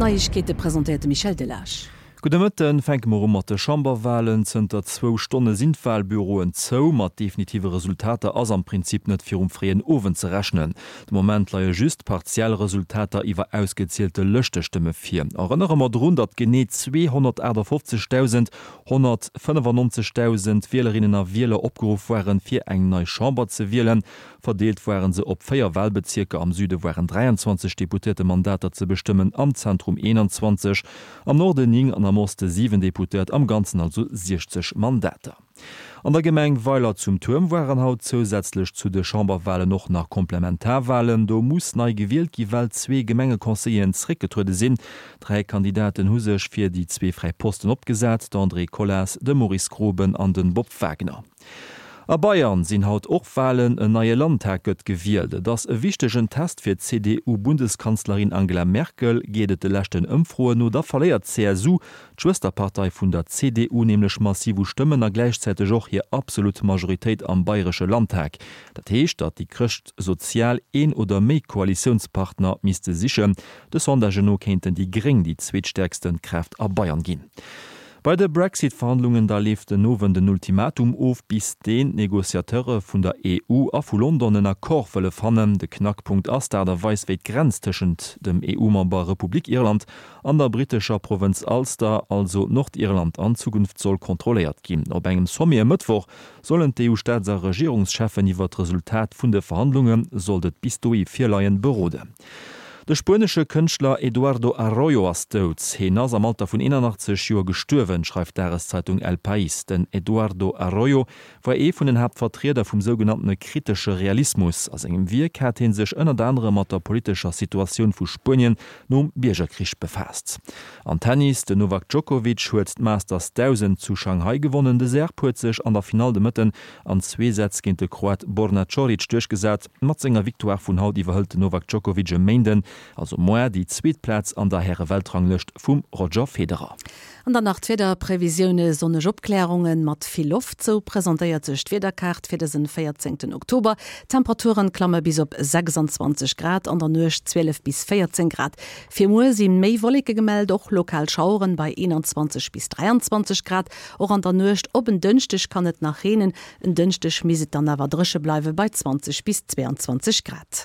D'Neiegkeete presentéiert de Michel Delage. Gudde Mëtten. Fänke mer u mat de Chamberwalen. Zënter zwou Stonne sinn d'Walbüroen zou. Mat definitive Resultater ass am Prinzip net virum fréien Owend ze rechnen. De Moment leie just partiell Resultater iwwer ausgezielte Lëschtestëmme vir. Erënnere mer drun, datt genee 258.195.000 Wielerinnen a Wieler opgeruff waren, fir eng nei Chamber ze wielen. Verdeelt waren se op 4 Walbezierker, am Süde waren 23 Deputéiertemandater ze bestëmmen, am Zentrum 21, am Norden 9 an am Oste 7 Deputéiert, am Ganzen also 60 Mandater. An der Gemeng Weiler zum Tuerm waren haut zousätzlech zu de Chamberwalen och nach Komplementarwalen. Do muss nei gewielt gi well zwee Gemengeconseilleren zeréckgetruede sinn. Dräi Kandidaten hu sech fir déi zwee fräi Posten opgesat, d'Andrée Colas, de Maurice Groben an de Bob Wagner. A Bayern sinn haut och Walen, en neie Landtag gëtt gewielt. Et ass e wichtegen Test fir d'CDU-Bundeskanzlerin Angela Merkel. Geet et de leschten Ëmfroen no, da verléiert d'CSU, d'Schwësterpartei vun der CDU, nämlech massiv u Stëmmen a gläichzäiteg och hir absolut Majoritéit am bayresche Landtag. Dat heescht, datt déi Chrëschtsozial een oder méi Koalitiounspartner misste sichen. De Sondagen no kéinten déi Gréng déi zweetstäerkste Kraaft a Bayern ginn. Bei de Brexit-Verhandlungen da leeft den Owend en Ultimatum of, bis deen d'Negociateure vun der EU a vu London en Accord wëlle fannen. De Knackpunkt ass d'Aart a Weis, wéi d'Grenz tëschent dem EU-Member Republik Irland an der brittescher Provënz Ulster, also Nordirland, an Zukunft soll kontrolléiert ginn. Op engem Sommet e Mëttwoch sollen d'EU-Staats a Regierungscheffen iwwer d'Resultat vun de Verhandlunge, sollt et bis dohi virleien, beroden. De spuenesche Kënschtler Eduardo Arroyo ass dout. Heen ass am Alter vun 81 Joer gestuerwen, schreift d'Dageszeitung El País. Den Eduardo Arroyo war ee vun den Haaptvertrieder vum sougenanntene kritesche Realismus. A sengem Wierk hat hee sech ënnert anerem mat der politescher Situatioun vu Spuenien nom Biergerkrich befaasst. Am Tennis, Den Novak Djokovic huet d'Masters 1000 zu Shanghai gewonnen. De Serb huet sech an der Finall de Mëtten an zwee Sätz géint de Kroat Borna Coric duerchgesat. Mat senger Victoire vun haut iwwerhëlt den Novak Djokovic e Méinden, also moar, déi zweet Plaz an der Häre-Weltranglëscht vum Roger Federer. An dann nach d'Wiederprevisioune, Sonneg Opklärunge mat vill Loft, sou presentéiert sech d'Wiederkaart fir dësen 14 Oktober. D'Temperaturen klamme bis op 26 Grad, an der Nuecht 12 bis 14 Grad. Fir muer si méi Wolleke gemellt, och lokal Schaueren bei 21 bis 23 Grad. Och an der Nuecht op en Dënschdeg kann et nach reenen. En Dënschdeg misst et dann awer dréche bleiwe bei 20 bis 22 Grad.